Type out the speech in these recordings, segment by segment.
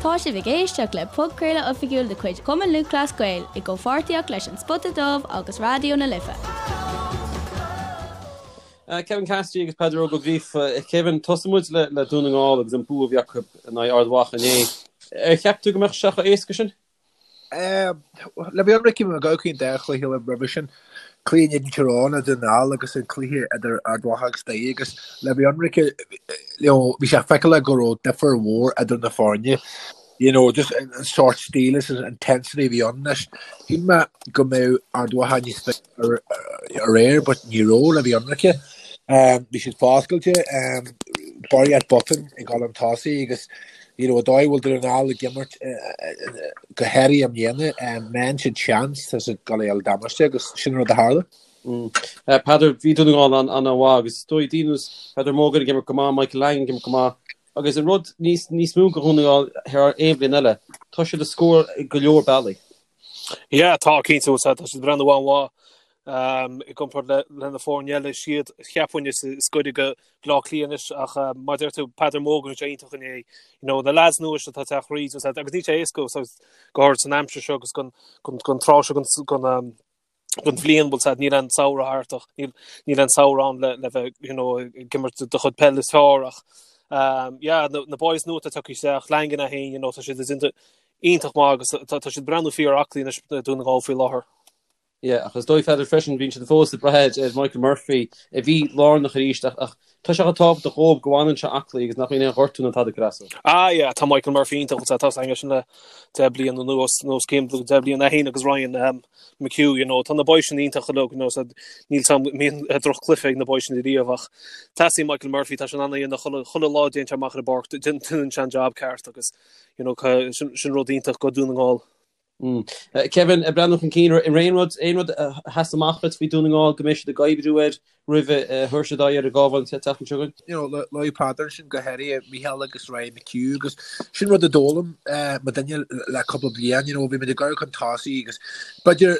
Tá sibh ag éisteacht le podchraoladh oifigiúil de chuid Chumann Lúthchleas Gael i gcomhpháirtíocht leis An Spota Dubh agus Raidió na Life. Kevin Cassidy agus Peadar Óg Ó Gríofa. Kevin, tosóidh muid le Dún na nGall agus an bua a bhí acu in aghaidh Ard Mhacha inné. Ar cheap tú go mbeadh sé chomh éasca sin? Le bheith ionraic bhí mé ag amharc ar an dá chluiche eile roimhe sin, cluiche in éadan Tír Eoghain i nDún na nGall agus an cluiche idir Ard Mhacha agus Doire agus le bheith ionraic bhí sé feiceálach go raibh difear mhór idir na foirne. You know, just an sort stíl is an intensity a bhí ann anois. Shíl mé go mbeadh Ard Mhacha níos fearr aréir but ní raibh le bheith ionraic. Bhí siad foscailte, barraíocht botún ag dul chun tosaigh agus you know, an dóigh a bhfuil Dún na nGall ag imirt go háirithe i mbliana, má fhaigheann siad seans tá siad ag dul a fháil damáiste agus sin an rud a tharla. Peadar, bhí Dún na nGall an-mhaith agus is dóigh daoine ar nós Peadar Mogan ag imirt go maith, Michael Langan ag imirt go maith agus an rud níos níos mó do Dhún na nGall thar aon bhliain eile, tá siad ag scór go leor bealaí. Yeah, tá cinnte, tá siad ag breathnú an-mhaith i gcomparáid le le na foirne eile is iad cheapfainn is is gaire do Bhaile Átha Cliath anois ach mar a deir tú Peadar Mogan bhí sé iontach inné you know na lads nua seo atá ag teacht thríd agus níl sé éasca so go háirid san aimsir seo agus gon gon gon tráth seo gon gon gon bhliain bhfuil said níl an samhradh thart ach níl níl an samhradh ann le le bheith you know ag imirt do chuid peil is fearr ach um, yeah, na, na boys nua atá tagtha isteach Langan é féin you know, tá siad ag iontach maith agus tá tá siad ag breathnú fíor aclaí anois Dún na nGall faoi láthair. Yeah, ach is dóigh Pheadar freisin bíonn siad fós ag brath ar Michael Murphy a bhí lárnach arís ach ach tá sé chomh tábhachtach dhóibh go bhfanann sé aclaí agus nach mbíonn aon ghortú ná tada ag cur as dó. Ah yeah, tá Michael Murphy iontach tá tá aige sin le 10 bliain anuas nó os cionn 10 bliain é féin agus Ryan um, McHugh, you know, tá na boys sin iontach uilig, you know, so níl sam mbíonn droch-chluiche ag na boys sin riamh ach teastaíonn Michael Murphy tá sé in ann a dhéanamh chuile chuile lá a dtéann sé amach ar an bpáirc déanann sé an job ceart agus you know, sin sin rud iontach go Dún na nGall. Kevin, ag breathnú chun cinn, an raibh aon rud, aon rud a sheas amach duit faoi Dún na nGall go mbeidh siad ag oibriú air roimh a thabharfaidh siad aghaidh ar an gCabhán an tseachtain seo chugainn? You know, luaigh Peadar ansin go háirithe Micheál agus Ryan McHugh agus sin rud a d'fhoghlaim muidinne le cúpla bliain, you know, bhí muid ag gabháil chun tosaigh agus b'fhéidir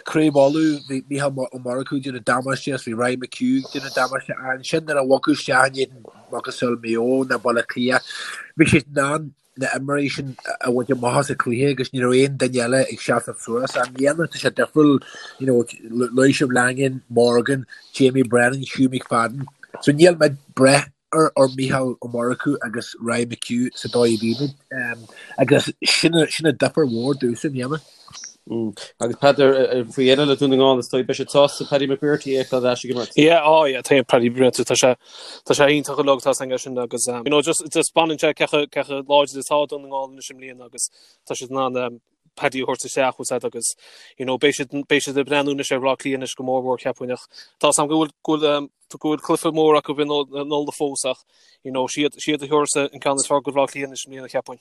Craobh Uladh, bhí Micheál Ó Murchú ag déanamh damáiste agus bhí Ryan McHugh ag déanamh damáiste ansin nuair a bhogadh isteach in éadan macasamhail Maigh Eo nó Baile Átha Cliath, bhí siad in ann na himreoirí sin a bhaint amach as an chluiche agus ní raibh aon duine eile ag seasamh suas. I mbliana tá sé difriúil, you know, luaigh sibh Langan, Morgan, Jamie Brennan, Hugh McFadden. So níl muid ag brath ar ar Micheál Ó Murchú agus Ryan McHugh sa dóigh a bhí muid. Um, agus sin sin an difear mhór domhsa i mbliana. Mm. Agus Peadar faoi dheireadh le Dún na nGall is dóigh beidh siad sásta Paddy McBrearty a fheiceáil ar ais ag imirt. Yeah, oh yeah, tá Paddy McBrearty tá sé tá sé iontach uilig tá san sin agus um, you know, just just baineann sé cé chomh cé chomh láidir atá Dún na nGall anois i mbliana agus tá siad in ann um, Paddy a thabhairt isteach bhfuil siad agus you know, beidh siad beidh siad ag breathnú anois ar Bhaile Átha Cliath anois go mór mhór cheapfainn ach tá a fhios agam go bhfuil go bhfuil um, go bhfuil cluiche mór acu in Uladh fós ach you know, siad siad a thabharfas an ceann is fearr go Bhaile Átha Cliath anois i mbliana cheapfainn.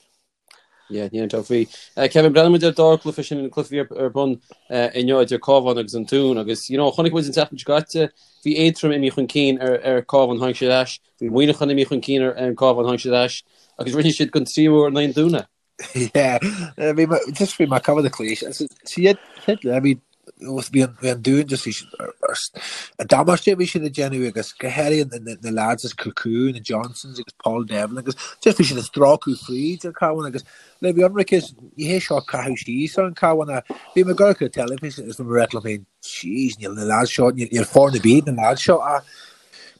Yeah, níl aon dabht faoi. Kevin, breathnaíonn muid ar an dara cluiche sin, an cluiche a bhí ar bun inniu idir Cabhán agus an Dún agus, you know, chonaic muid an tseachtain seo caite, bhí Aontroim imithe chun cinn ar ar Cabhán, tháinig siad ar ais, bhí Muineachán imithe chun cinn ar an Cabhán, tháinig siad ar ais agus rinne siad don tríú huair in aghaidh an Dúin é. Yeah, bhí mé, just bhí mé ag coimhéad an chluiche. Siad, bhí Bhí an Dún just bhí siad an damáiste a bhí siad ag déanamh agus go háirithe na lads as Kilcoon, na Johnsons agus Paul Devlin agus just bhí siad ag stróiceadh fríd an Cabhán agus le bheith ionraic ní hé seo caitheamh síos ar an Cabhán ach bhí mé ag amharc ar an teilifís agus bhí mé ag rá liom féin jeez níl na lads seo níl foirne ar bith na lads seo ach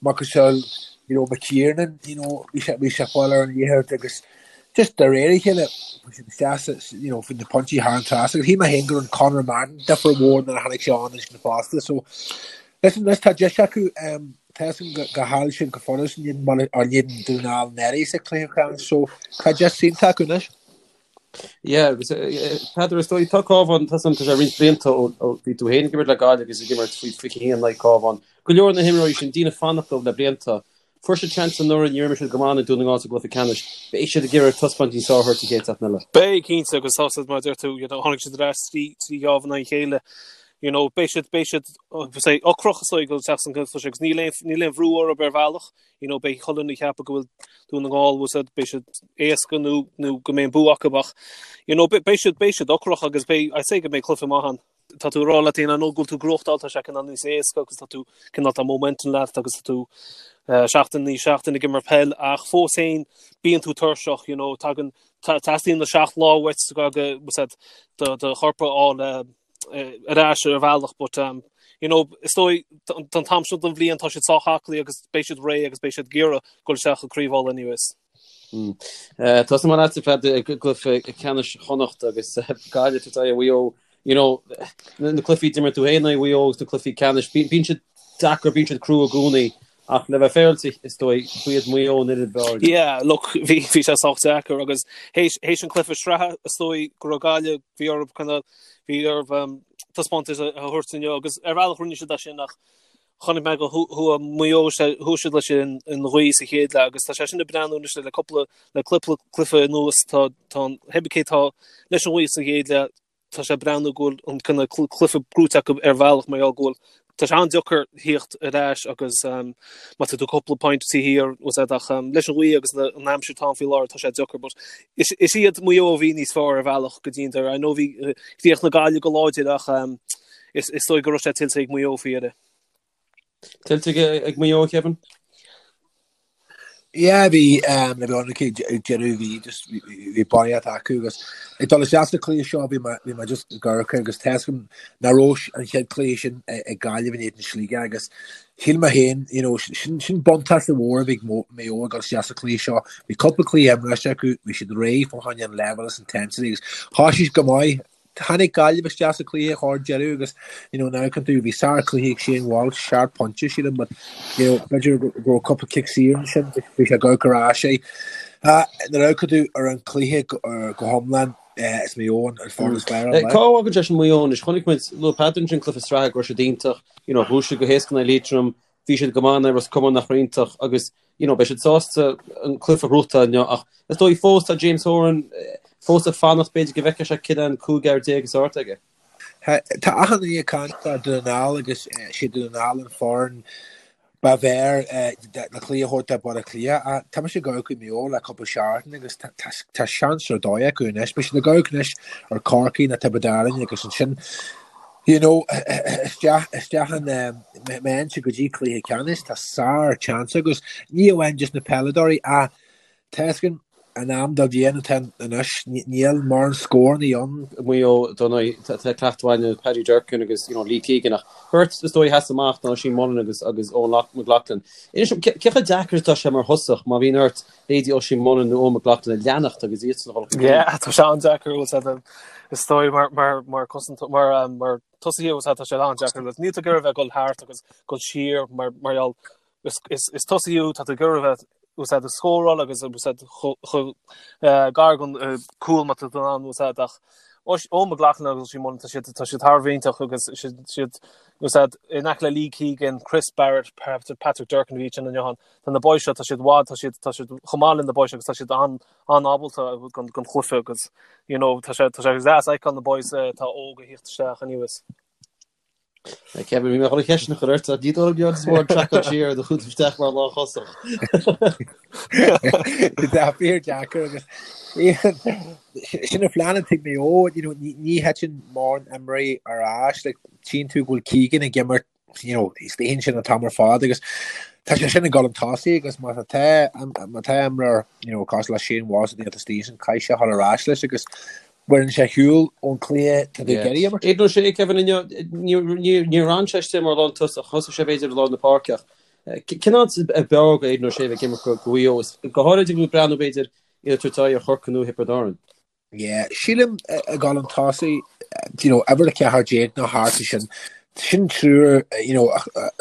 macasamhail you know McKiernan you know bhí sé bhí sé ag fáil ar an liathróid agus just de réir a chéile bhí siad isteach sa you know bhí na pointí thar an trasnán agus shíl mé féin go raibh Conor Madden difear mhór nuair a tháinig sé ann ansin fosta so listen anois tá deis acu um, tá a fhios agam go go chaill siad go follas in éadan Baile or in éadan Dún na nGall anuraidh sa chluiche ceannais so tá deis iontach acu anois. Yeah, agus Peadar is dóigh tá Cabhán tá san tá sé roinnt blianta ó ó bhí tú féin ag imirt le Gaillimh agus ag imirt faoi 21 in aghaidh Cabhán. Go leor na himreoirí sin daoine ag fanacht leo le blianta. Fuair siad seans anuraidh, níor imir siad go maith in aghaidh Dún na nGall sa gcluiche ceannais. Beidh siad ag iarraidh taispeáint níos fearr a thabhairt an chéad seachtain eile. Beidh, cinnte, agus tá siad mar a deir tú, you know, tháinig siad ar ais trí ghábh in aghaidh a chéile. You know, beidh siad, beidh siad, say, ocrach is dóigh ag dul isteach san gcluiche agus níl aon, níl aon bhrú orthu ar bhealach. You know, beidh chuile dhuine ag ceapadh go bhfuil Dún na nGall, bhfuil siad, beidh siad éasca nó, nó go mbeidh an bua acu ach, you know, beidh siad, beidh siad ocrach agus beidh, I'd say go mbeidh cluiche maith ann. Tá tú ag rá leat féin, I know go bhfuil tú ag gnóthachtáil, tá sé cineál níos éasca agus tá tú cineál tá momentum leat agus tá tú seachtain i ndiaidh seachtain ag imirt peil ach fós féin bíonn tú tuirseach, you know, tagann teastaíonn na 7 lá uait go do do chorp a fháil ar ais ar bhealach but um, you know, is dóigh don t-am seo den bhliain tá siad sách aclaí agus beidh siad réidh agus beidh siad ag iarraidh dul isteach i gCraobh Uladh anyways. Tosóidh mé leatsa Peadar i gcluiche ceannais Chonnacht agus Gaillimh ag tabhairt aghaidh ar Mhaigh Eo. You know, na cluichí a d'imir tú féin in aghaidh Mhaigh Eo agus na cluichí ceannais, bíonn siad deacair, bíonn siad crua i gcónaí ach le bheith féaráilte is dóigh, ba iad Maigh Eo an fhoireann ab fhearr. Yeah, look, bhí bhí sé sách deacair agus théis théis an cluiche sraithe is dóigh go raibh Gaillimh, bhí orthu kind of bhí orthu um, taispeántas a thabhairt inniu agus ar bhealach rinne siad é sin ach Chonaic mé go chuaigh Maigh Eo, chuaigh siad leis an ghaoth sa chéad leath agus tá sé sin ag breathnú anois le cúpla le cúpla cluiche anuas tá tá an pé cé tá leis an ghaoth sa chéad leath tá sé ag breathnú go bhfuil an cineál cluiche gnóite acu ar bhealach mar gheall go bhfuil tá sé an-deacair thíocht ar ais agus um, má tá tú cúpla point taobh thiar was ach um, leis an ghaoth agus an aimsir atá ann faoi láthair tá sé deacair but is, is iad Maigh Eo a bhí níos fearr ar bhealach go dtí an deireadh. I know bhí chríochnaigh Gaillimh go láidir ach um, Is dóigh go raibh sé tuillte ag Maigh Eo faoi dheireadh. Tuillte ag Maigh Eo, Kevin? Yeah, bhí um, le bheith ionraic ag deireadh bhí just bhí barraíocht acu agus ag dul isteach sa cluiche seo bhí mé bhí mé just ag amharc agus tá a fhios agam nach raibh an chéad cluiche sin ag Gaillimh in éadan Sligeach agus shíl mé féin you know, sin, sin buntáiste mhór a bhí ag Maigh Eo ag dul isteach sa cluiche seo. Bhí cúpla cluiche imeartha acu, bhí siad réidh fá choinne an level is intensity agus thosaigh siad go maith Tháinig Gaillimh isteach sa chluiche chomh deireadh agus you know nuair a amharcann tú bhí sár-chluiche ag Shane Walsh, seacht bpointe sílim but you know b'fhéidir go raibh cúpla cic saor ansin bhí sé ag amharc ar ais é. Nuair a amharcann tú ar an chluiche go hiomlán is Maigh Eo an foireann is fearr an Cá bhfágann sé sin Maigh Eo anois? Chonaic muid luaigh Peadar ansin cluiche sraithe go raibh siad iontach, you know bhuaigh siad go héasca in aghaidh Liatroim, bhí siad go maith in aghaidh Ros Comáin nach raibh iontach agus you know beidh siad sásta an cluiche a ghnóthachtáil inniu ach is dóigh fós tá James Horan fós ag fanacht b'fhéidir go bhfeicfeadh sé cé an 15 fhear is fearr atá aige. Tá achan duine ag caint fá Dún na nGall agus sé Dún na nGall an foireann ba bhfearr le cluiche a thabhairt do Bhaile Átha Cliath. Tá mise ag amharc ar Maigh Eo le cúpla seachtain agus tá seans ar dóigh acu anois. Beidh siad ag amharc anois ar Corcaigh nó Tiobraid Árann agus ansin You know, isteach, isteach an, má théann siad go dtí cluiche ceannais, tá sár chance agus ní amháin just na peileadóirí ach tá a fhios againn an am den bhliain atá anois, níl mórán scóranna ann. Maigh Eo, dar ndóigh, tá cleachtadh againn Paddy Durcan agus you know, Lee Keegan ach beirt is dóigh a sheas amach ná Oisín Mullin agus agus Eoghan McLaughlin. Inis dom, cé chomh deacair atá sé mar thosach má bhíonn ort leithéidí Oisín Mullin nó Eoghan McLaughlin a leanacht agus iadsan a dhul chun cinn? Yeah, tá sé an-deacair, bhfuil a fhios agat. Is dóigh mar mar mar cosaint mar um, mar tosaí bhfuil a fhios agat tá sé an-deacair. Níl tú ag iarraidh bheith ag dul thart agus dul siar mar mar gheall is is is tosaí thú tá tú ag iarraidh bheith bhfuil a fhios agat ag scóráil agus bhfuil a fhios agat chomh eh, gar don eh, cúl má tá tú in ann bhfuil a fhios agat ach Eoghan McLaughlin agus Oisín Mullin tá siad tá siad thar a bheith iontach agus siad siad bhfuil a fhios agat in aice le Lee Keegan, Chris Barrett, Patrick Durcan a bhí sin inniu ann. Tá na boys seo tá siad bhfad tá siad tá siad chomh maith le na boys agus tá siad an an-ábalta don don chluiche agus you know tá sé tá sé deas a fheiceáil na boys atá óg ag thíocht isteach anuas. Kevin, bhí mé chun an cheist sin a chur ort, ní dóigh liom go bhfuil traiceáil siar do chúl isteach mar lánthosach. Tá fíor deacair agus sin an phlean atá ag Maigh Eo, you know, ní thiteann mórán imreoirí ar ais, like, tchíonn tú go bhfuil Keegan ag imirt you know, istigh ansin an t-am ar fad agus tá sé sin ag dul chun tosaigh agus má tá má tá imreoir you know, cosúil le Shane Walsh a istigh ansin caithfidh sé dhul ar ais leis agus baineann sé shiúl ón cluiche tá tú ag iarraidh imirt. Aidan O'Shea, Kevin inniu, níor fhan sé istigh mar lántosach, thosaigh sé b'fhéidir i lár na páirce ach cén áit ab fhearr do Aidan O'Shea bheith ag imirt do Mhaigh Eo, go háirid ag breathnú b'fhéidir iad ag tabhairt aghaidh ar Chorcaigh nó Thiobraid Árann. Yeah, sílim ag dul chun tosaigh, you know, uimhir 14 nó thart air sin, sin triúr, you know,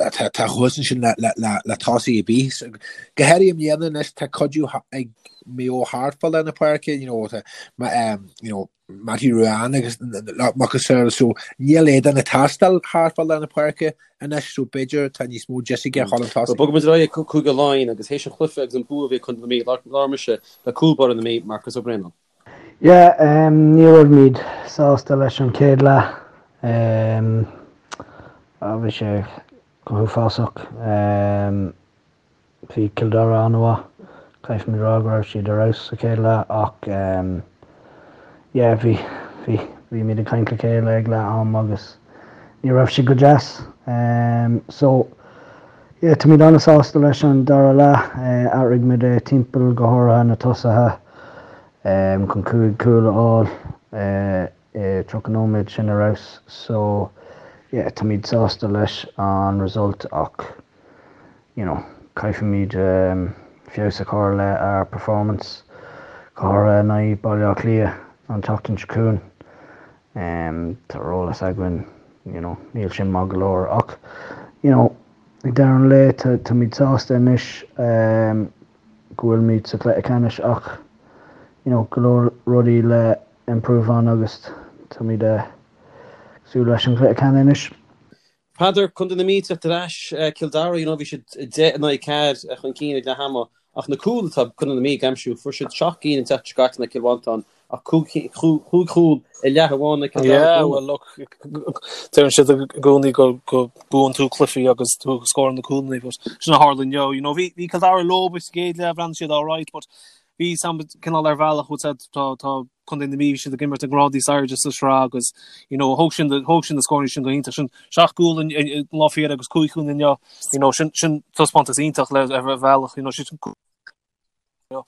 atá thuas ansin le, le, le, le tosaí ar bith. So, go háirithe i mbliana anois, tá cuidiú ag Maigh Eo thart fá lár na páirce, you know, tá, um, you know, Mattie Ruane agus macasamhail, so níl Aidan ag teastáil thart fá lár na páirce anois, so b'fhéidir tá níos mó deis aige a dhul chun tosaigh. Bogfaidh muid ar aghaidh ag Cúige Laighean agus théis an chluiche agus an bua a bhí ag Contae na Mí, labhair mise le cúl báire na Mí, Marcus Ó Braonáin. Yeah, ní raibh muid sásta leis an chéad leath. Bhí sé go huafásach. Bhí Cill Dara an-mhaith. Caithfimid rá go raibh siad ar fheabhas sa chéad leath ach yeah, bhí, bhí, bhí muid ag caint le chéile ag leath am agus. Ní raibh sé go deas. So, yeah, táimid an-sásta leis an dara leath. Athraigh muid é timpeall, go háirithe na tosaithe, chun 5 cúl a fháil i 30 nóiméad, sin ar fheabhas. So, yeah, táimid sásta leis an result ach, you know, caithfimid feabhas a chur le ár performance, go háirithe in aghaidh Baile Átha Cliath an tseachtain seo chugainn. Tá ar eolas againn, you know, níl sin maith go leor ach, you know, ag deireadh an lae táimid sásta anois go bhfuilimid sa chluiche ceannais ach, you know, go leor rudaí le improve on agus táimid ag súil leis an chluiche ceannais anois. Peadar, Contae na Mí ag teacht ar ais, Cill Dara, you know, bhí siad 10 in aghaidh 4 chun cinn ag leath ama ach na cúil atá Contae na Mí ag aimsiú, fuair siad 7 gcinn an tseachtain seo caite in aghaidh Cill Mhantáin ach 5 chúl i leath amháin in aghaidh Cill Dara. Yeah, well look, deireann siad i gcónaí go go buann tú cluichí agus tú ag scóráil na cúlanna but sin a tharla inniu, you know, bhí bhí Cill Dara leo sa gcéad leath, bhreathnaigh siad alright but bhí sam cineál ar bhealach bhfuil said tá tá Contae na Mí bhí siad ag imirt ag grád níos airde sa sraith agus you know thóg sin thóg sin na scóranna sin go hiontach sin seacht gcúl in in lá féile agus cúig chúl inniu you know sin sin taispeántas iontach le ar bhealach you know sin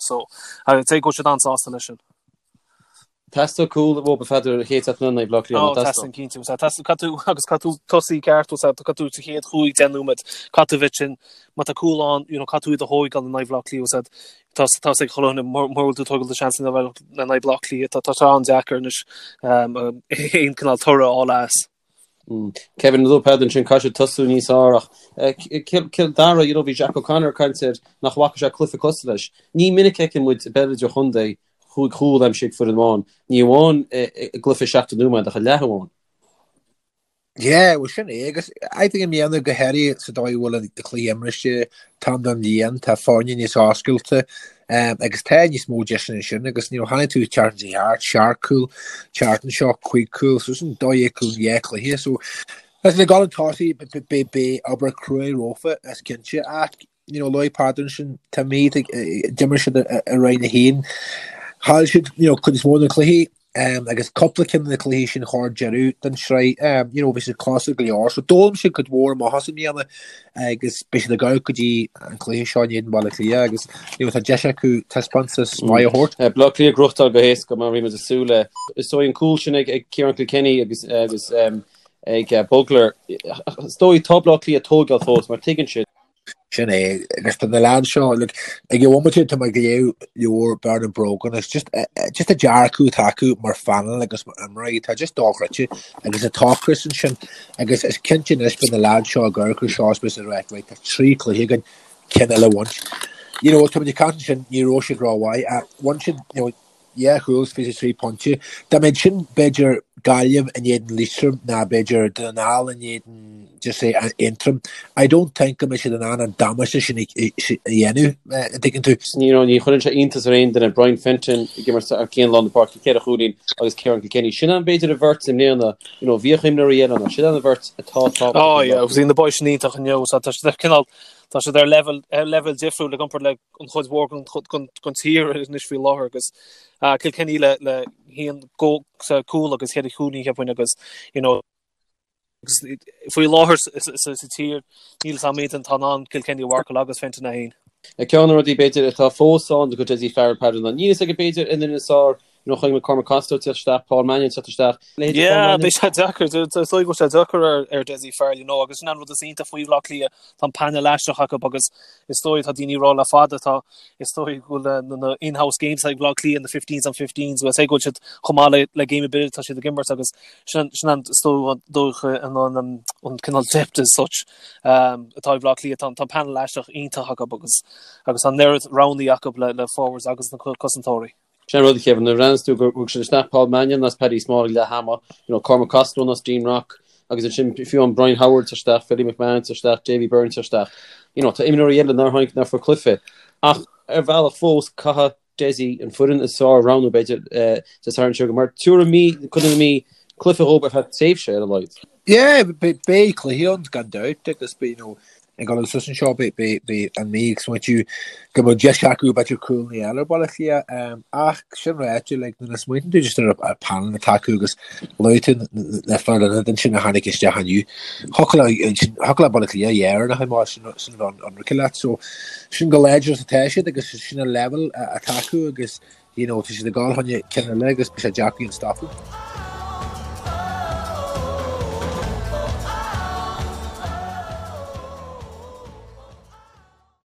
so agus go bhfuil siad an-sásta leis sin. Teastóidh cúl uathu a Pheadair an chéad seachtain in aghaidh Bhaile Átha Cliath, nach dteastóidh? Teastaíonn cinnte, caithfidh tú agus caithfidh tú tosaí ceart, caithfidh tú sa chéad chúig deich nóiméad, caithfidh tú bheith sin, má tá cúl ann, you know, caithfidh tú iad a thóigeáil in aghaidh Bhaile Átha Cliath, tá tá ag chuile dhuine mura bhfuil tú ag tógáil do seansanna in aghaidh Bhaile Átha Cliath, tá tá an-deacair anois aon cineál toradh a fháil as. Kevin luaigh Peadar ansin caithfidh siad tosú níos fearr ach Cill Dara, you know, bhí Jack O'Connor ag caint air nach bhfaca sé cluiche cosúil leis. Ní minic a fheiceann muid i bpeil idirchontae chúig chúl aimsithe ag foireann amháin, ní amháin i gcluiche 70 nóiméad ach i leath amháin. Yeah, well sin é agus I think i mbliana go háirithe sa dóigh a bhfuil an cluiche imrithe an t-am den bhliain, tá foirne níos oscailte um, agus tá níos mó deiseanna ansin agus you know, chonaic tú tseachtain seo thart, seacht cúl, tseachtain seo cúig cúl, so sin 12 cúl in dhá chluiche, so Listen, ag dul chun tosaigh beidh obair cruaidh rompu is cinnte ach you know, luaigh Peadar ansin, tá Mí ag d'imir siad i Roinn 1. Chaill siad you know, cuid is mó de na cluichí um, agus cúpla ceann de na cluichí sin chóir deireadh den sraith um, you know, bhí siad cosúil go leor. So d'fhoghlaim siad cuid mhór amach as i mbliana agus beidh siad ag gabháil go dtí an cluiche seo in éadan Bhaile Átha Cliath agus you know, tá deis acu taispeántas maith a thabhairt. Uh, Baile Átha Cliath ag gnóthachtáil go héasca mar bhí muid ag súil le. Is dóigh an cúl sin ag, ag Ciarán Kilkenny agus, agus um, ag uh, Bugler. Is dóigh tá Baile Átha Cliath ag tógáil fós mar tuigeann siad Sin é, agus tá na leaids seo, look, ag an bhomaite tá mé ag léamh leabhar Bernard Brogan, it's just, eh, eh, just an dearcadh atá acu mar phainéal agus mar imreoirí, tá just dochreidte agus an t-ocras ansin agus is cinnte anois beidh na leaids seo ag amharc air seo is beidh siad ag rá, right, tá trí chluiche againn, ceann eile a bhaint. You know, tá muid ag caint ansin, ní raibh siad rómhaith, ach bhain siad, you know, 2 chúl is 23 pointe. Dá mbeadh sin, b'fhéidir, Gaillimh in éadan Liatroim ná b'fhéidir Dún na nGall in éadan, just say, Aontroim, I don't think go mbeadh siad in ann an damáiste sin a dhéanamh, an dtuigeann tú. You know, ní chuireann sé iontas ar aon duine, Brian Fenton ag imirt thar cionn lár na páirce, ceithre chúilín agus Ciarán Kilkenny. Sin an, b'fhéidir, an bheirt i mbliana, you know, bhíodh imreoirí eile ann ach sin an bheirt atá tábhachtach. Oh yeah, agus bhí na boys sin iontach inniu, so tá siad ar cineál, tá siad ar level, ar level difriúil i gcomparáid le an chuid mhór den tír anois faoi láthair agus Kilkenny le le haon sa cúl agus cheithre chúilín cheapfainn agus you know agus faoi láthair sa tír níl 's a'm aon duine atá in ann Kilkenny a mharcáil agus Fenton é féin. Ceann de na rudaí b'fhéidir atá fós ann do Dessie Farrell Peadar ná níl fhios aige b'fhéidir an fhoireann is fearr You know, chonaic muid Cormac Costello teacht isteach, Paul Mannion teacht isteach. Leithéidí Paul Yeah, Mannion. beidh sé deacair. Is dóigh go bhfuil sé deacair ar, ar Dessie Farrell, you know, agus sin an rud is iontach faoi Bhaile Átha Cliath, tá an painéal aisteach acu agus is dóigh tá daoine ag rá le fada, tá, is dóigh go bhfuil na, na in-house games ag Baile Átha Cliath, na 15s on 15s, well, say go bhfuil siad chomh maith le, le game ar bith atá siad ag imirt agus sin, sin an, is dóigh, dóigh an, an, an, an cineál depth as such um, atá ag Baile Átha Cliath, tá, tá an painéal aisteach iontach acu agus, agus tá an oiread roghanna acu le, le forwards agus na cosantóirí. Sin an rud, a Kevin, nuair a bhreathnaíos tú gur thug siad isteach Paul Mannion as Paddy Small ag leath ama, you know, Cormac Costello as Dean Rock, agus ansin fiú an Brian Howard tar isteach, Philly McMahon tar isteach, Davy Byrne tar isteach. You know, tá imreoirí eile nár tháinig nár fuair cluiche. Ach ar bhealach fós, caithfidh Dessie an foireann is fearr a roghnú, b'fhéidir, Dé Sathairn seo, mar tabharfaidh Mí, Contae na Mí, cluiche dhóibh ar feadh tréimhse ar a laghad. Yeah, beidh cluichí ann gan dabht agus beidh, you know, Ag dul suas anseo beidh an Mhí ag smaointiú go mbeadh deis acu b'fhéidir cúl a fháil ar Bhaile Átha Cliath ach sin ráite like nuair a smaoiníonn tú just ar an panel atá acu agus luaigh tú na fir ionaid ansin a tháinig isteach inniu thiocfadh le thiocfadh le Baile Átha Cliath dheireanach a mar sin sin bheith ionraice leat so sin chomh láidir is atá siad agus sin an level atá acu agus you know tá siad ag dul chun ceann eile agus beidh sé deacair iad a stopadh.